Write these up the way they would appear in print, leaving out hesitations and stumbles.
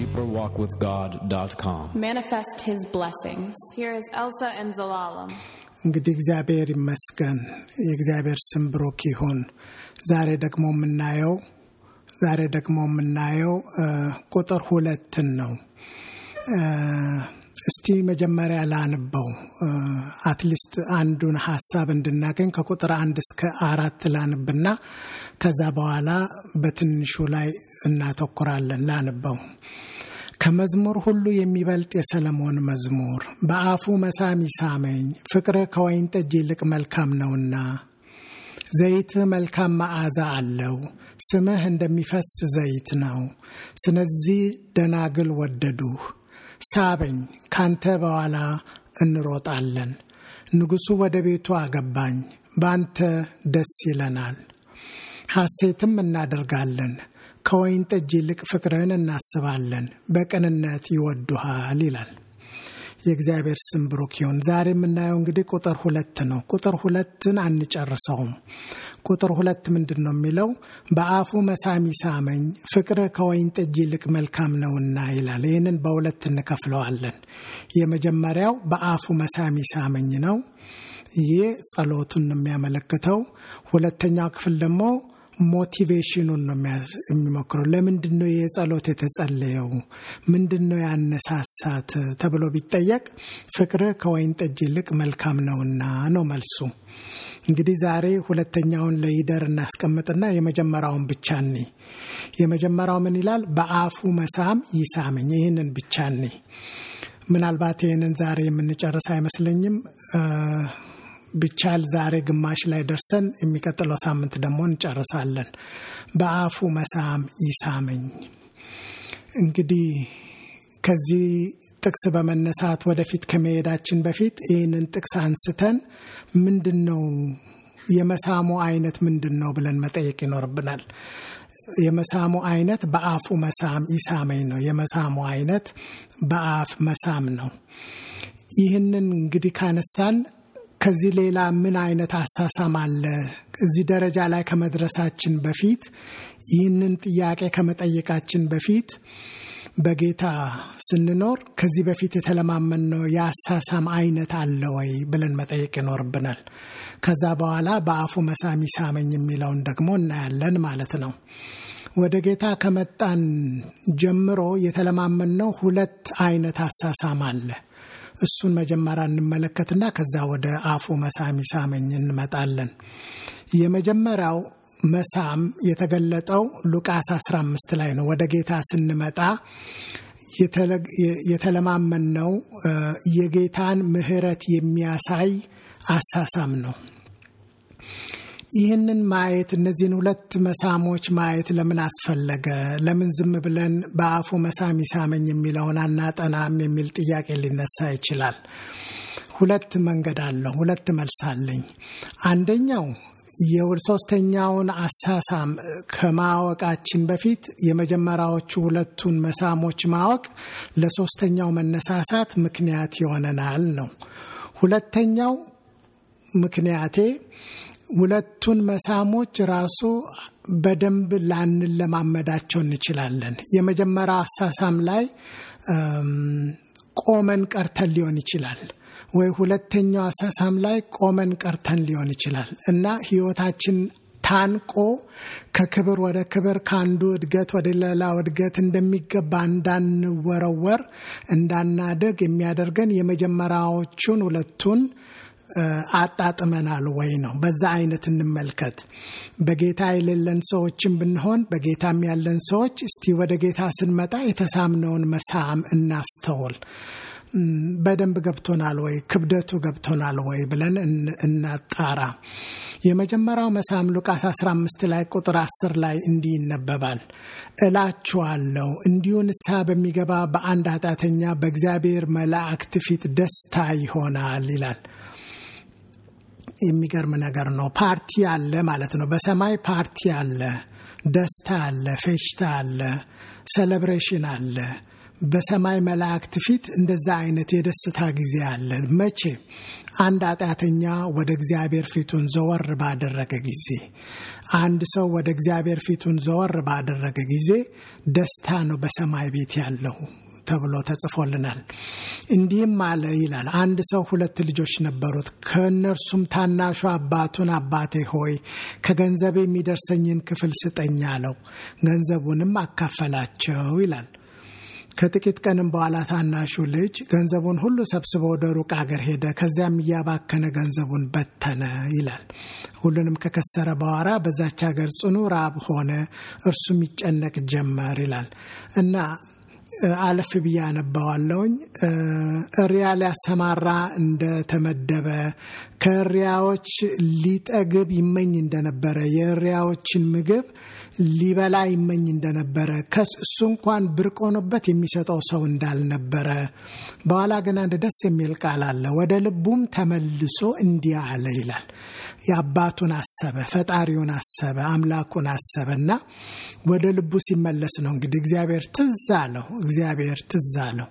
deeperwalkwithgod.com. Manifest His blessings. Here is Elsa and Zelalem. እንግዲህ እግዚአብሔር ይመስገን የእግዚአብሔር ስም ብሩክ ይሁን። ዛሬ ደግሞ የምናየው ቁጥር 2 ነው። እስቲ መጀመሪያ ላንበው አትሊስት አንዱን ሐሳብ እንድናገኝ ከቁጥር 1 እስከ 4 ላንብና ከዛ በኋላ በትንሹ ላይ እናተኩራለን። ላንበው። ከመዝሙር ሁሉ የሚበልጥ የሰለሞን መዝሙር በአፉ መሳም ይሳመኝ ፍቅር ከወይን ጠጅ ይልቅ መልካም ነውና ዘይት መልካም መዓዛ አለው ስምህ እንደሚፈስ ዘይት ነው። ስለዚህ ደናግል ወደዱህ ሳበኝ ካንተ በኋላ እንሮጣለን። ንጉሱ ወደ ቤቱ አገባኝ ባንተ ደስ ይለናል ሐሴትም እናደርጋለን። ከወይን ጠጅ ይልቅ ፍቅርህን እናስባለን በቅንነት ይወዱሃል ይላል። የእግዚአብሔር ስም ብሩክ ይሁን። ዛሬ የምናየው እንግዲህ ቁጥር 2 ነው። ቁጥር 2ን አንጨርሰውም። ቁጥር 2 ምንድነው የሚለው? በአፉ መሳም ይሳመኝ ፍቅር ከወይን ጠጅ ይልቅ መልካም ነውና ይላል። ይሄንን በሁለት እንከፍለዋለን። የመጀመሪያው በአፉ መሳም ይሳመኝ ነው። ይሄ ጸሎቱን የሚያመለክተው። ሁለተኛው ክፍል ደግሞ ሞቲቬሽኑን ነው የሚመክረው። ለምንድነው የጸሎት የተጸለየው? ምንድነው ያነሳሳት ተብሎ ቢጠየቅ ፍቅር ከወይን ጠጅ ይልቅ መልካም ነውና ነው መልሱ። እንግዲህ ዛሬ ሁለተኛውን ለይደር እናስቀምጥና የመጀመሪያውን ብቻ ነኝ። የመጀመሪያው ምን ይላል? በአፉ መሳም ይሳመኝ። ይሄንን ብቻ ነኝ። ምናልባት ይሄንን ዛሬ የምንጨርስ አይመስለኝም። ብቻል ዛሬ ግማሽ ላይ ደርሰን የሚቀጥለው ሳምንት ደግሞ እንጨርሳለን። በአፉ መሳም ይሳመኝ። እንግዲህ ከዚህ ጥቅስ በመነሳት ወደፊት ከመሄዳችን በፊት ይህንን ጥቅስ አንስተን ምንድነው የመሳሙ አይነት ምንድነው ብለን መጠየቅ ይኖርብናል። የመሳሙ አይነት በአፉ መሳም ይሳመኝ ነው። የመሳሙ አይነት በአፍ መሳም ነው። ይህንን እንግዲህ ካነሳን ከዚህ ሌላ ምን አይነት አሳሳም አለ? እዚህ ደረጃ ላይ ከመድረሳችን በፊት ይህንን ጥያቄ ከመጠየቃችን በፊት በጌታ ስንኖር ከዚህ በፊት የተለማመነው የአሳሳም አይነት አለ ወይ ብለን መጠየቅ ይኖርብናል። ከዛ በኋላ በአፉ መሳም ይሳመኝ የሚለውን ደግሞ እናያለን ማለት ነው። ወደ ጌታ ከመጣን ጀምሮ የተለማመነው 2 አይነት አሳሳም አለ። እሱን መጀመሪያ እንመለከትና ከዛ ወደ አፉ መሳም ይሳመኝ እንመጣለን። የመጀመሪያው መሳም የተገለጠው ሉቃስ 15 ላይ ነው። ወደ ጌታ ስንመጣ የተለማመነው የጌታን ምሕረት የሚያሳይ አሳሳም ነው። ይህንን ማየት እነዚህን 2 መሳሞች ማየት ለምን አስፈለገ? ለምን ዝም ብለን በአፉ መሳም ይሳመኝ የሚለውን አናጠናም የሚል ጥያቄ ሊነሳ ይችላል። 2 መንገድ አለው። 2 መልስ አለኝ። አንደኛው የሶስተኛውን አሳሳም ከማወቃችን በፊት የመጀመሪያዎቹ 2ቱን መሳሞች ማወቅ ለሶስተኛው መነሳሳት ምክንያት ይሆነናል ነው። ሁለተኛው ምክንያቴ 2ቱን መሳሞች ራሱ በደንብ ላንለማመዳቸው እንችላለን። የመጀመሪያው አሳሳም ላይ ቆመን ቀርተን ሊሆን ይችላል ወይ ሁለተኛው አሳሳም ላይ ቆመን ቀርተን ሊሆን ይችላል እና ህይወታችን ታንቆ ከክብር ወደ ክብር ካንዱ እድገት ወደ ሌላ እድገት እንደሚገባ እንዳንወረወር እንዳናደግ የሚያደርገን የመጀመሪያዎቹን 2ቱን አጣጥመናል ወይ ነው። በዛ አይነት እንመልከት። በጌታ የሌለን ሰዎችን ብንሆን በጌታም ያለን ሰዎች እስቲ ወደ ጌታ ስንመጣ የተሳምነውን መሳም እናስተውል። በደንብ ገብቶናል ወይ? ክብደቱ ገብቶናል ወይ ብለን እናጣራ። የመጀመሪያው መሳም ሉቃስ 15 ላይ ቁጥር 10 ላይ እንዲህ ይነበባል። እላችኋለሁ እንዲሁ ንስሐ በሚገባ በአንድ ኃጢአተኛ በእግዚአብሔር መላእክት ፊት ደስታ ይሆናል ይላል። የሚገርም ነገር ነው። ፓርቲ አለ ማለት ነው። በሰማይ ፓርቲ አለ፣ ደስታ አለ፣ ፌሽታ አለ፣ ሴሌብሬሽን አለ። በሰማይ መላእክት ፊት እንደዛ አይነት የደስታ ጊዜ አለ። መቼ? አንድ ኃጢአተኛ ወደ እግዚአብሔር ፊቱን ዘወር ባደረገ ጊዜ፣ አንድ ሰው ወደ እግዚአብሔር ፊቱን ዘወር ባደረገ ጊዜ ደስታ ነው በሰማይ ቤት ያለው ተብሎ ተጽፎልናል። እንዲህም አለ ይላል። አንድ ሰው 2 ልጆች ነበሩት። ከእነርሱም ታናሹ አባቱን አባቴ ሆይ ከገንዘቤ የሚደርሰኝን ክፍል ስጠኝ አለው። ገንዘቡንም አካፈላቸው ይላል። ከጥቂት ቀንም በኋላ ታናሹ ልጅ ገንዘቡን ሁሉ ሰብስቦ ወደ ሩቅ አገር ሄደ። ከዚያም እያባከነ ገንዘቡን በተነ ይላል። ሁሉንም ከከሰረ በኋላ በዛች ሀገር ጽኑ ራብ ሆነ፣ እርሱም ይጨነቅ ጀመር ይላል እና አለፍ ብዬ አነባዋለሁኝ። እሪያ ሊያሰማራ እንደተመደበ ከእሪያዎች ሊጠግብ ይመኝ እንደነበረ የእሪያዎችን ምግብ ሊበላ ይመኝ እንደነበረ ከሱ እንኳን ብርቅ ሆኖበት የሚሰጠው ሰው እንዳልነበረ በኋላ ግን አንድ ደስ የሚል ቃል አለ። ወደ ልቡም ተመልሶ እንዲህ አለ ይላል። የአባቱን አሰበ፣ ፈጣሪውን አሰበ፣ አምላኩን አሰበና ወደ ልቡ ሲመለስ ነው እንግዲህ እግዚአብሔር ትዝ አለው።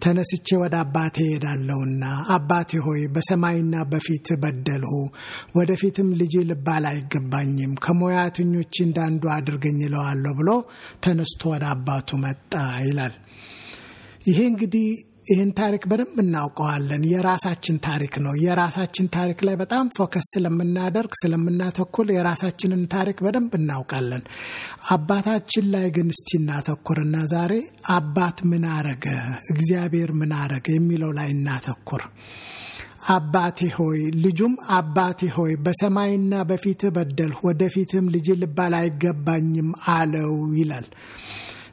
ተነስቼ ወደ አባቴ ሄዳለሁና አባቴ ሆይ በሰማይና በፊት በደልሁ፣ ወደፊትም ልጅ ልባል አይገባኝም፣ ከሞያተኞች እንዳንዱ አድርገኝ እለዋለሁ ብሎ ተነስቶ ወደ አባቱ መጣ ይላል። ይሄ እንግዲህ ይህን ታሪክ በደንብ እናውቀዋለን። የራሳችን ታሪክ ነው። የራሳችን ታሪክ ላይ በጣም ፎከስ ስለምናተኩር የራሳችንን ታሪክ በደንብ እናውቃለን። አባታችን ላይ ግን እስቲ እናተኩርና ዛሬ አባት ምን አረገ፣ እግዚአብሔር ምን አረገ የሚለው ላይ እናተኩር። አባቴ ሆይ ልጁም አባቴ ሆይ በሰማይና በፊት በደልሁ፣ ወደፊትም ልጅ ልባል አይገባኝም አለው ይላል።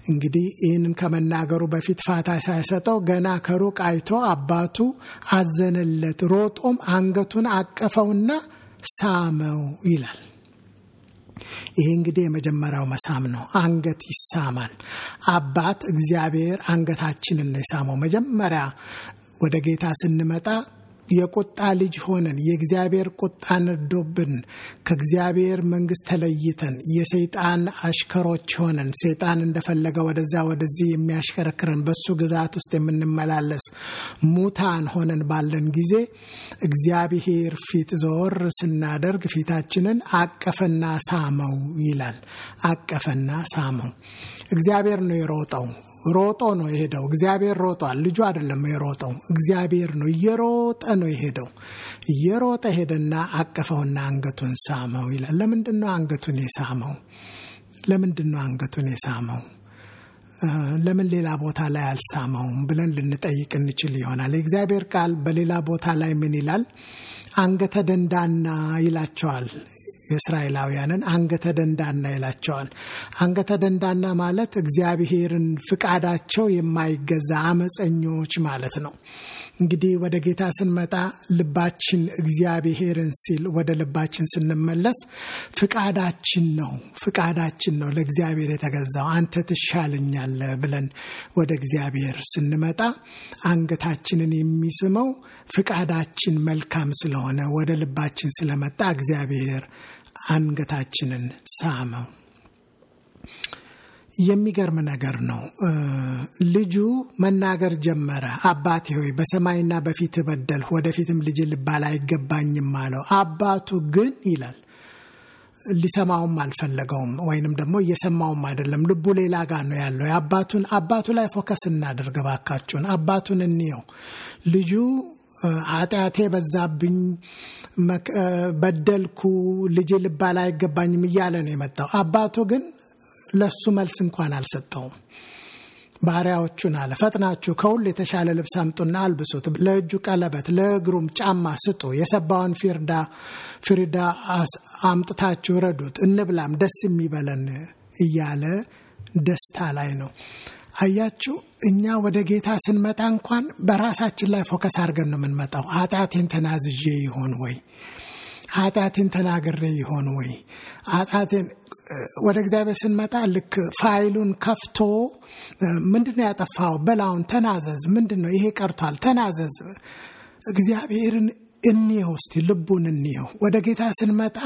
እንግዲህ ይህንን ከመናገሩ በፊት ፋታ ሳይሰጠው ገና ከሩቅ አይቶ አባቱ አዘነለት፣ ሮጦም አንገቱን አቀፈውና ሳመው ይላል። ይሄ እንግዲህ የመጀመሪያው መሳም ነው። አንገት ይሳማል። አባት እግዚአብሔር አንገታችንን ነው የሳመው። መጀመሪያ ወደ ጌታ ስንመጣ የቁጣ ልጅ ሆነን የእግዚአብሔር ቁጣ ነዶብን ከእግዚአብሔር መንግስት ተለይተን የሰይጣን አሽከሮች ሆነን ሰይጣን እንደፈለገ ወደዛ ወደዚህ የሚያሽከረክረን በሱ ግዛት ውስጥ የምንመላለስ ሙታን ሆነን ባለን ጊዜ እግዚአብሔር ፊት ዘወር ስናደርግ ፊታችንን አቀፈና ሳመው ይላል። አቀፈና ሳመው። እግዚአብሔር ነው የሮጠው። ሮጦ ነው የሄደው። እግዚአብሔር ሮጧል። ልጁ አይደለም የሮጠው፣ እግዚአብሔር ነው። እየሮጠ ነው የሄደው። እየሮጠ ሄደና አቀፈውና አንገቱን ሳመው ይላል። ለምንድነው አንገቱን የሳመው? ለምን ሌላ ቦታ ላይ አልሳመውም ብለን ልንጠይቅ እንችል ይሆናል። የእግዚአብሔር ቃል በሌላ ቦታ ላይ ምን ይላል? አንገተ ደንዳና ይላቸዋል። የእስራኤላውያንን አንገተ ደንዳና ይላቸዋል። አንገተ ደንዳና ማለት እግዚአብሔርን ፍቃዳቸው የማይገዛ አመፀኞች ማለት ነው። እንግዲህ ወደ ጌታ ስንመጣ ልባችን እግዚአብሔርን ሲል ወደ ልባችን ስንመለስ ፍቃዳችን ነው ለእግዚአብሔር የተገዛው። አንተ ትሻለኛለህ ብለን ወደ እግዚአብሔር ስንመጣ አንገታችንን የሚስመው ፍቃዳችን መልካም ስለሆነ ወደ ልባችን ስለመጣ እግዚአብሔር አንገታችንን ሳመው። የሚገርም ነገር ነው። ልጁ መናገር ጀመረ። አባቴ ሆይ በሰማይና በፊት በደልሁ፣ ወደፊትም ልጅ ልባል አይገባኝም አለው። አባቱ ግን ይላል ሊሰማውም አልፈለገውም፣ ወይንም ደግሞ እየሰማውም አይደለም። ልቡ ሌላ ጋር ነው ያለው። አባቱ ላይ ፎከስ እናድርግ ባካችሁን። አባቱን እንየው። ልጁ ኃጢአቴ በዛብኝ፣ በደልኩ፣ ልጅ ልባል አይገባኝም እያለ ነው የመጣው። አባቱ ግን ለሱ መልስ እንኳን አልሰጠውም። ባሪያዎቹን አለ ፈጥናችሁ ከሁሉ የተሻለ ልብስ አምጡና አልብሱት፣ ለእጁ ቀለበት ለእግሩም ጫማ ስጡ፣ የሰባውን ፍሪዳ አምጥታችሁ ረዱት፣ እንብላም ደስ የሚበለን እያለ ደስታ ላይ ነው። አያችሁ፣ እኛ ወደ ጌታ ስንመጣ እንኳን በራሳችን ላይ ፎከስ አድርገን ነው የምንመጣው። ኃጢአቴን ተናዝዤ ይሆን ወይ? ኃጢአቴን ተናግሬ ይሆን ወይ? ኃጢአቴን ወደ እግዚአብሔር ስንመጣ ልክ ፋይሉን ከፍቶ ምንድነው ያጠፋው? በላውን ተናዘዝ። ምንድነው ይሄ ቀርቷል? ተናዘዝ። እግዚአብሔርን እንየው እስቲ፣ ልቡን እንየው። ወደ ጌታ ስንመጣ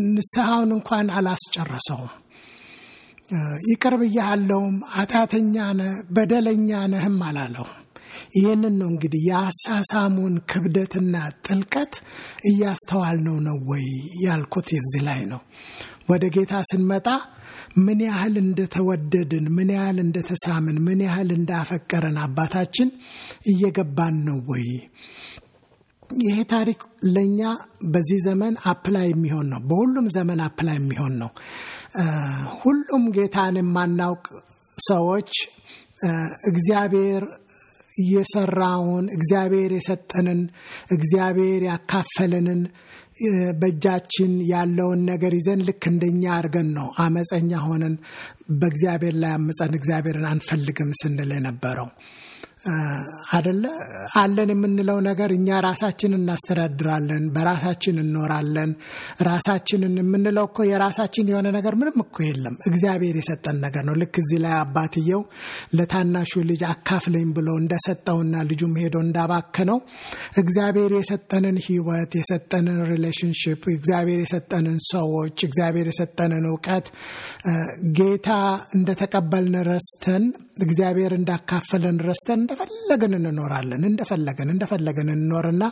ንስሐውን እንኳን አላስጨረሰውም። ይቅር ብያለሁም ኃጢአተኛ ነህ በደለኛ ነህም አላለውም። ይሄንን ነው እንግዲህ የአሳሳሙን ክብደትና ጥልቀት እያስተዋልነው ነው ወይ ያልኩት እዚህ ላይ ነው። ወደ ጌታ ስንመጣ ምን ያህል እንደተወደድን፣ ምን ያህል እንደተሳምን፣ ምን ያህል እንዳፈቀረን አባታችን እየገባን ነው ወይ? ይሄ ታሪክ ለኛ በዚህ ዘመን አፕላይ የሚሆን ነው። በሁሉም ዘመን አፕላይ የሚሆን ነው። ሁሉም ጌታን የማናውቅ ሰዎች እግዚአብሔር የሰራውን፣ እግዚአብሔር የሰጠንን፣ እግዚአብሔር ያካፈለንን በእጃችን ያለውን ነገር ይዘን ልክ እንደኛ አድርገን ነው አመፀኛ ሆነን በእግዚአብሔር ላይ አመፀን እግዚአብሔርን አንፈልግም ስንል የነበረው አይደለ? አለን የምንለው ነገር እኛ ራሳችንን እናስተዳድራለን፣ በራሳችን እንኖራለን። ራሳችንን የምንለው እኮ የራሳችን የሆነ ነገር ምንም እኮ የለም፣ እግዚአብሔር የሰጠን ነገር ነው። ልክ እዚህ ላይ አባትየው ለታናሹ ልጅ አካፍለኝ ብሎ እንደሰጠውና ልጁም ሄዶ እንዳባከነው እግዚአብሔር የሰጠንን ሕይወት፣ የሰጠንን ሪሌሽንሺፕ፣ እግዚአብሔር የሰጠንን ሰዎች፣ እግዚአብሔር የሰጠንን ዕውቀት ጌታ እንደተቀበልን ረስተን፣ እግዚአብሔር እንዳካፈለን ረስተን እንደፈለገን እንኖራለን። እንደፈለገን እንኖርና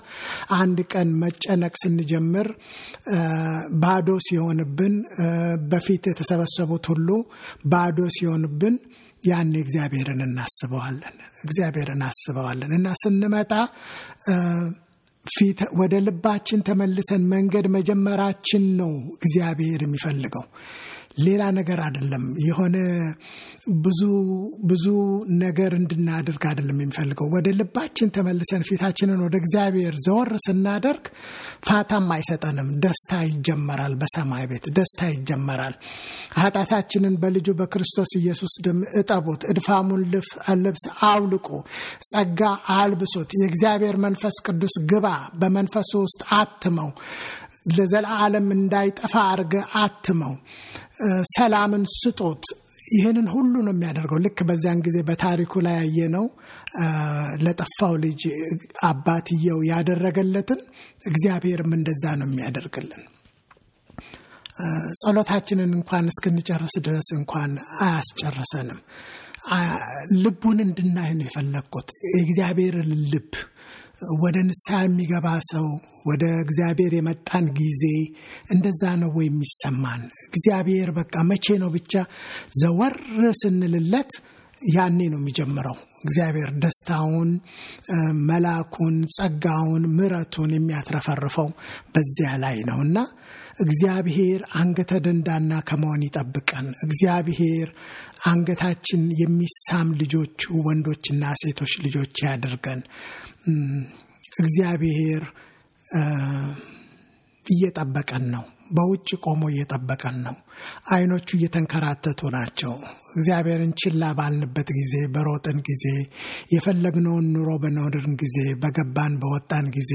አንድ ቀን መጨነቅ ስንጀምር ባዶ ሲሆንብን፣ በፊት የተሰበሰቡት ሁሉ ባዶ ሲሆንብን ያን እግዚአብሔርን እናስበዋለን እና ስንመጣ ፊት ወደ ልባችን ተመልሰን መንገድ መጀመራችን ነው እግዚአብሔር የሚፈልገው፣ ሌላ ነገር አይደለም። የሆነ ብዙ ነገር እንድናደርግ አይደለም የሚፈልገው። ወደ ልባችን ተመልሰን ፊታችንን ወደ እግዚአብሔር ዘወር ስናደርግ ፋታም አይሰጠንም። ደስታ ይጀመራል። በሰማይ ቤት ደስታ ይጀመራል። ኃጢአታችንን በልጁ በክርስቶስ ኢየሱስ ደም እጠቡት፣ እድፋሙን ልብስ አውልቁ፣ ጸጋ አልብሱት፣ የእግዚአብሔር መንፈስ ቅዱስ ግባ፣ በመንፈሱ ውስጥ አትመው፣ ለዘላለም እንዳይጠፋ አርገ አትመው፣ ሰላምን ስጡት። ይህንን ሁሉ ነው የሚያደርገው። ልክ በዛን ጊዜ በታሪኩ ላይ ያየነው ለጠፋው ልጅ አባትየው ያደረገለትን እግዚአብሔርም እንደዛ ነው የሚያደርግልን። ጸሎታችንን እንኳን እስክንጨርስ ድረስ እንኳን አያስጨርሰንም። ልቡን እንድናይ ነው የፈለግኩት። የእግዚአብሔርን ልብ ወደ ንስሐ የሚገባ ሰው ወደ እግዚአብሔር የመጣን ጊዜ እንደዛ ነው ወይ የሚሰማን? እግዚአብሔር በቃ መቼ ነው ብቻ ዘወር ስንልለት ያኔ ነው የሚጀምረው። እግዚአብሔር ደስታውን፣ መላኩን፣ ጸጋውን፣ ምሕረቱን የሚያትረፈርፈው በዚያ ላይ ነውና እግዚአብሔር አንገተ ደንዳና ከመሆን ይጠብቀን። እግዚአብሔር አንገታችን የሚሳም ልጆቹ ወንዶችና ሴቶች ልጆች ያድርገን። እግዚአብሔር እየጠበቀን ነው። በውጭ ቆሞ እየጠበቀን ነው። አይኖቹ እየተንከራተቱ ናቸው። እግዚአብሔርን ችላ ባልንበት ጊዜ፣ በሮጥን ጊዜ፣ የፈለግነውን ኑሮ በኖርን ጊዜ፣ በገባን በወጣን ጊዜ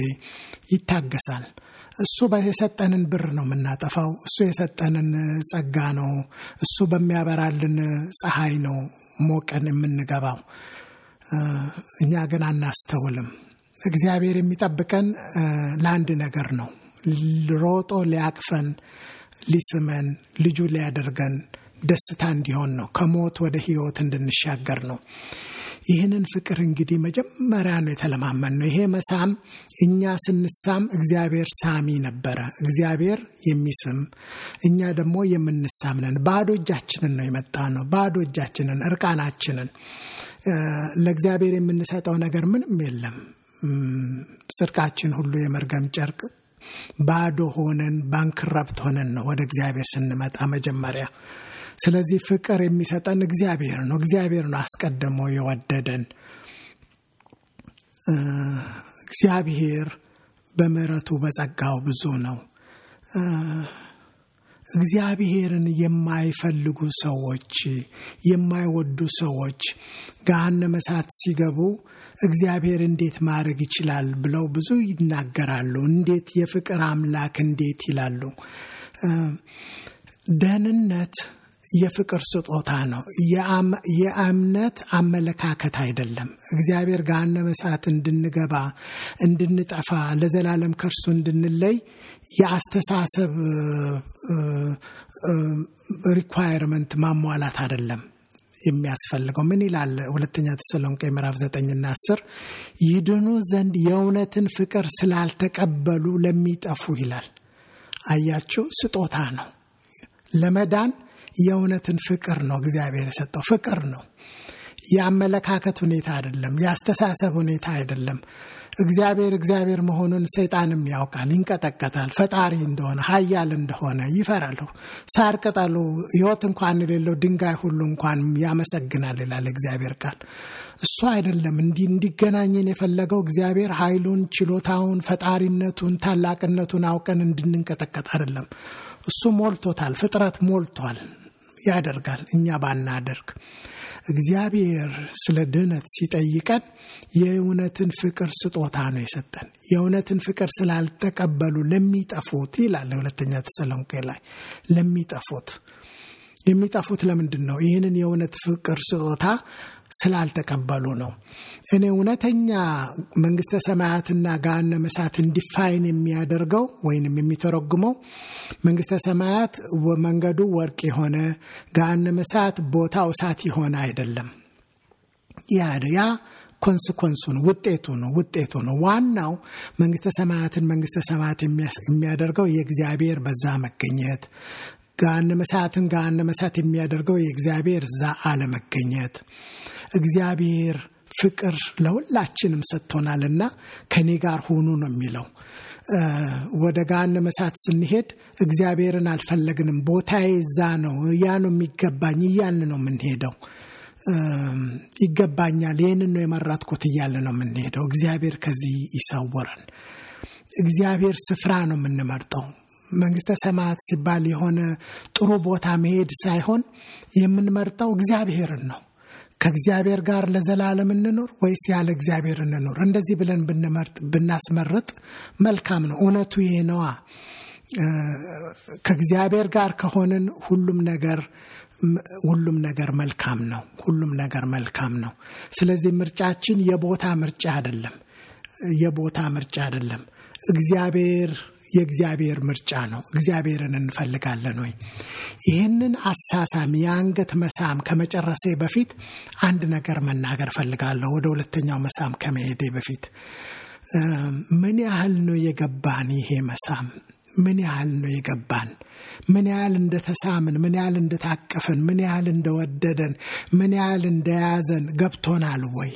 ይታገሳል። እሱ የሰጠንን ብር ነው የምናጠፋው። እሱ የሰጠንን ጸጋ ነው። እሱ በሚያበራልን ፀሐይ ነው ሞቀን የምንገባው። እኛ ግን አናስተውልም። እግዚአብሔር የሚጠብቀን ለአንድ ነገር ነው። ሮጦ ሊያቅፈን፣ ሊስመን፣ ልጁ ሊያደርገን፣ ደስታ እንዲሆን ነው። ከሞት ወደ ሕይወት እንድንሻገር ነው። ይህንን ፍቅር እንግዲህ መጀመሪያ ነው የተለማመን ነው። ይሄ መሳም እኛ ስንሳም እግዚአብሔር ሳሚ ነበረ። እግዚአብሔር የሚስም፣ እኛ ደግሞ የምንሳም ነን። ባዶ እጃችንን ነው የመጣ ነው። ባዶ እጃችንን፣ እርቃናችንን። ለእግዚአብሔር የምንሰጠው ነገር ምንም የለም። ጽድቃችን ሁሉ የመርገም ጨርቅ። ባዶ ሆነን ባንክረብት ሆነን ነው ወደ እግዚአብሔር ስንመጣ መጀመሪያ። ስለዚህ ፍቅር የሚሰጠን እግዚአብሔር ነው። እግዚአብሔር ነው አስቀድሞ የወደደን። እግዚአብሔር በምሕረቱ በጸጋው ብዙ ነው። እግዚአብሔርን የማይፈልጉ ሰዎች፣ የማይወዱ ሰዎች ገሃነመ እሳት ሲገቡ እግዚአብሔር እንዴት ማድረግ ይችላል ብለው ብዙ ይናገራሉ። እንዴት የፍቅር አምላክ እንዴት ይላሉ። ደህንነት የፍቅር ስጦታ ነው። የእምነት አመለካከት አይደለም። እግዚአብሔር ገሃነመ እሳት እንድንገባ፣ እንድንጠፋ፣ ለዘላለም ከእርሱ እንድንለይ የአስተሳሰብ ሪኳየርመንት ማሟላት አይደለም። የሚያስፈልገው። ምን ይላል ሁለተኛ ተሰሎንቄ ምዕራፍ 9 እና 10 ይድኑ ዘንድ የእውነትን ፍቅር ስላልተቀበሉ ለሚጠፉ ይላል። አያችሁ፣ ስጦታ ነው። ለመዳን የእውነትን ፍቅር ነው እግዚአብሔር የሰጠው። ፍቅር ነው፣ የአመለካከት ሁኔታ አይደለም፣ የአስተሳሰብ ሁኔታ አይደለም። እግዚአብሔር መሆኑን ሰይጣንም ያውቃል፣ ይንቀጠቀጣል። ፈጣሪ እንደሆነ ኃያል እንደሆነ ይፈራል። ሳር ቅጠሉ ሕይወት እንኳን የሌለው ድንጋይ ሁሉ እንኳን ያመሰግናል ይላል እግዚአብሔር ቃል። እሱ አይደለም እንዲገናኘን የፈለገው እግዚአብሔር ኃይሉን፣ ችሎታውን፣ ፈጣሪነቱን፣ ታላቅነቱን አውቀን እንድንንቀጠቀጥ አይደለም። እሱ ሞልቶታል፣ ፍጥረት ሞልቷል፣ ያደርጋል። እኛ ባናደርግ እግዚአብሔር ስለ ድነት ሲጠይቀን የእውነትን ፍቅር ስጦታ ነው የሰጠን። የእውነትን ፍቅር ስላልተቀበሉ ለሚጠፉት ይላል ሁለተኛ ተሰሎንቄ ላይ። የሚጠፉት ለምንድን ነው? ይህንን የእውነት ፍቅር ስጦታ ስላልተቀበሉ ነው። እኔ እውነተኛ መንግስተ ሰማያትና ገሃነመ እሳት ዲፋይን የሚያደርገው ወይንም የሚተረጉመው መንግስተ ሰማያት መንገዱ ወርቅ የሆነ ገሃነመ እሳት ቦታው እሳት የሆነ አይደለም። ያ ኮንሲኩዌንሱ ነው፣ ውጤቱ ነው። ዋናው መንግስተ ሰማያት የሚያደርገው የእግዚአብሔር በዛ መገኘት፣ ገሃነመ እሳት የሚያደርገው የእግዚአብሔር እዛ አለመገኘት። እግዚአብሔር ፍቅር ለሁላችንም ሰጥቶናልና ከኔ ጋር ሁኑ ነው የሚለው። ወደ ገሃነመ እሳት ስንሄድ እግዚአብሔርን አልፈለግንም፣ ቦታዬ እዛ ነው፣ ያ ነው የሚገባኝ እያልን ነው የምንሄደው። ይገባኛል፣ ይህንን ነው የመረጥኩት እያልን ነው የምንሄደው። እግዚአብሔር ከዚህ ይሰውረን። እግዚአብሔር ስፍራ ነው የምንመርጠው። መንግስተ ሰማያት ሲባል የሆነ ጥሩ ቦታ መሄድ ሳይሆን የምንመርጠው እግዚአብሔርን ነው። ከእግዚአብሔር ጋር ለዘላለም እንኖር ወይስ ያለ እግዚአብሔር እንኖር? እንደዚህ ብለን ብናስመርጥ መልካም ነው። እውነቱ ይሄ ነዋ። ከእግዚአብሔር ጋር ከሆንን ሁሉም ነገር መልካም ነው። ስለዚህ ምርጫችን የቦታ ምርጫ አይደለም። የእግዚአብሔር ምርጫ ነው። እግዚአብሔርን እንፈልጋለን ወይ? ይህንን አሳሳም የአንገት መሳም ከመጨረሴ በፊት አንድ ነገር መናገር ፈልጋለሁ። ወደ ሁለተኛው መሳም ከመሄዴ በፊት ምን ያህል ነው የገባን? ይሄ መሳም ምን ያህል ነው የገባን? ምን ያህል እንደተሳምን፣ ምን ያህል እንደታቀፍን፣ ምን ያህል እንደወደደን፣ ምን ያህል እንደያዘን ገብቶናል ወይ?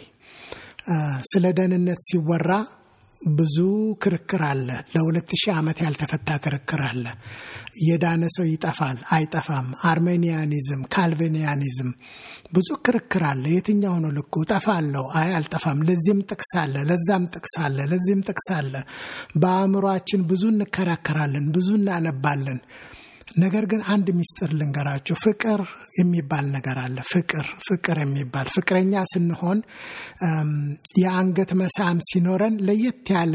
ስለ ደህንነት ሲወራ ብዙ ክርክር አለ። ለ2000 ዓመት ያልተፈታ ክርክር አለ። የዳነ ሰው ይጠፋል አይጠፋም፣ አርሜኒያኒዝም፣ ካልቪኒያኒዝም፣ ብዙ ክርክር አለ። የትኛው ነው ልኩ? እጠፋለሁ፣ አልጠፋም፣ ለዚህም ጥቅስ አለ፣ ለዛም ጥቅስ አለ፣ ለዚህም ጥቅስ አለ። በአእምሯችን ብዙ እንከራከራለን፣ ብዙ እናነባለን። ነገር ግን አንድ ሚስጥር ልንገራችሁ። ፍቅር የሚባል ነገር አለ። ፍቅር የሚባል ፍቅረኛ ስንሆን የአንገት መሳም ሲኖረን ለየት ያለ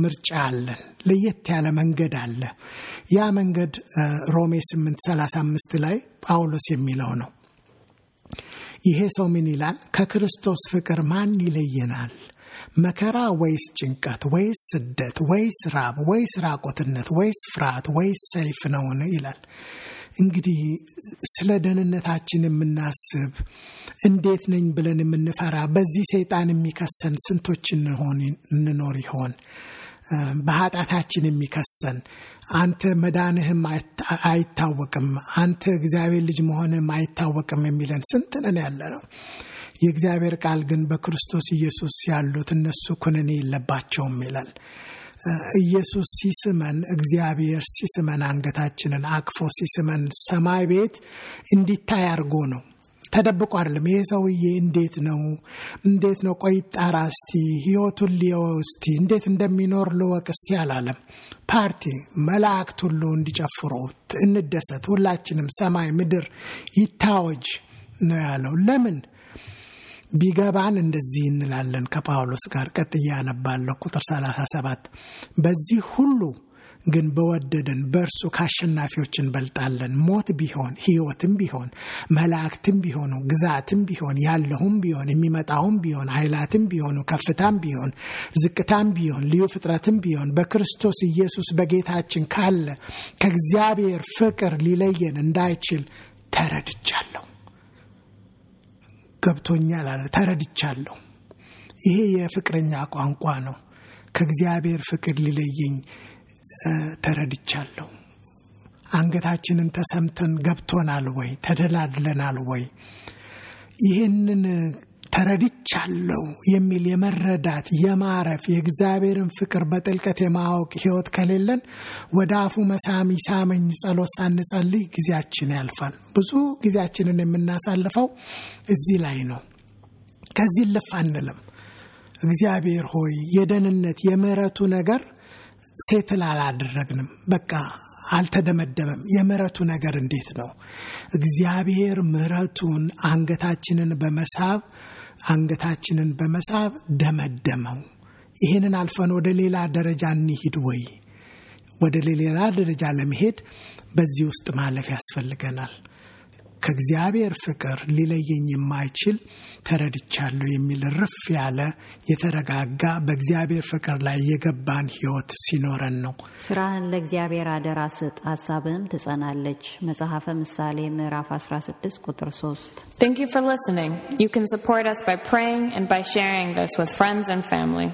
ምርጫ አለን፣ ለየት ያለ መንገድ አለ። ያ መንገድ ሮሜ 8:35 ላይ ጳውሎስ የሚለው ነው። ይሄ ሰው ምን ይላል? ከክርስቶስ ፍቅር ማን ይለየናል? መከራ ወይስ ጭንቀት ወይስ ስደት ወይስ ራብ ወይስ ራቆትነት ወይስ ፍርሃት ወይስ ሰይፍ ነውን? ይላል። እንግዲህ ስለ ደህንነታችን የምናስብ እንዴት ነኝ ብለን የምንፈራ በዚህ ሰይጣን የሚከሰን ስንቶች እንኖር ይሆን? በኃጢአታችን የሚከሰን አንተ መዳንህም አይታወቅም፣ አንተ እግዚአብሔር ልጅ መሆንህም አይታወቅም የሚለን ስንት ነን ያለ ነው። የእግዚአብሔር ቃል ግን በክርስቶስ ኢየሱስ ያሉት እነሱ ኩነኔ የለባቸውም ይላል። ኢየሱስ ሲስመን፣ እግዚአብሔር ሲስመን፣ አንገታችንን አቅፎ ሲስመን ሰማይ ቤት እንዲታይ አድርጎ ነው። ተደብቆ አይደለም። ይሄ ሰውዬ እንዴት ነው ቆይ ጣራ እስቲ ህይወቱን ሊየው እስቲ እንዴት እንደሚኖር ልወቅ እስቲ አላለም። ፓርቲ መላእክት ሁሉ እንዲጨፍሩ እንደሰት፣ ሁላችንም ሰማይ ምድር ይታወጅ ነው ያለው። ለምን ቢገባን እንደዚህ እንላለን ከጳውሎስ ጋር። ቀጥያ ያነባለሁ ቁጥር 37 በዚህ ሁሉ ግን በወደደን በእርሱ ካሸናፊዎች እንበልጣለን። ሞት ቢሆን ሕይወትም ቢሆን መላእክትም ቢሆኑ ግዛትም ቢሆን ያለውም ቢሆን የሚመጣውም ቢሆን ኃይላትም ቢሆኑ ከፍታም ቢሆን ዝቅታም ቢሆን ልዩ ፍጥረትም ቢሆን በክርስቶስ ኢየሱስ በጌታችን ካለ ከእግዚአብሔር ፍቅር ሊለየን እንዳይችል ተረድቻለሁ። ገብቶኛል አለ ተረድቻለሁ ይሄ የፍቅረኛ ቋንቋ ነው ከእግዚአብሔር ፍቅር ሊለየኝ ተረድቻለሁ አንገታችንን ተሰምተን ገብቶናል ወይ ተደላድለናል ወይ ይሄንን ተረድቻለሁ የሚል የመረዳት የማረፍ የእግዚአብሔርን ፍቅር በጥልቀት የማወቅ ህይወት ከሌለን ወደ አፉ መሳም ይሳመኝ ጸሎት ሳንጸልይ ጊዜያችን ያልፋል ብዙ ጊዜያችንን የምናሳልፈው እዚህ ላይ ነው ከዚህ ለፋንለም እግዚአብሔር ሆይ የደህንነት የምህረቱ ነገር ሴትል አላደረግንም በቃ አልተደመደመም የምህረቱ ነገር እንዴት ነው እግዚአብሔር ምህረቱን አንገታችንን በመሳብ ደመደመው ይሄንን አልፈን ወደ ሌላ ደረጃ እንሂድ ወይ ወደ ሌላ ደረጃ ለመሄድ በዚህ ውስጥ ማለፍ ያስፈልገናል ከእግዚአብሔር ፍቅር ሊለየኝ የማይችል ተረድቻለሁ የሚል ርፍ ያለ የተረጋጋ በእግዚአብሔር ፍቅር ላይ የገባን ህይወት ሲኖረን ነው ስራህን ለእግዚአብሔር አደራ ስጥ ሐሳብህም ትጸናለች መጽሐፈ ምሳሌ ምዕራፍ 16 ቁጥር 3 Thank you for listening. You can support us by praying and by sharing this with friends and family.